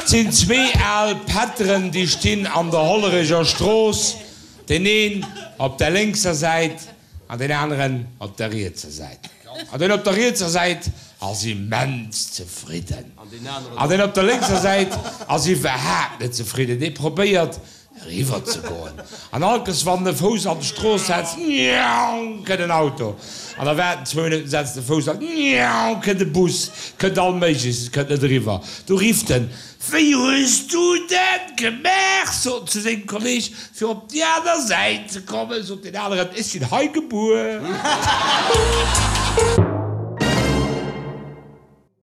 Et sinn zwee al Pätteren, déi stinn an der Hollerecher Strooss, deen een op der lénkser Säit an deen aneren op der rietser Säit. An deen op der rietser Säit ass immens zefridden an deen op der lénkser Säit ass iwwerhaapt net zefridden. Dee probéiert eriwwer ze goen an allkes wann en e Fouss an d'Strooss setzt, njaung, kënnt en Auto an da waart en zwou Minutten, setzt e Fouss an, njaung, kënnt e Bus, kënnt all Méigleches, kënnt net eriwwer. Du rifft en, Wéi hues du dat gemaach? sot en zu sengem Kolleg, fir op déi aner Säit ze kommen, sot deen aneren, Ech sinn hei gebuer.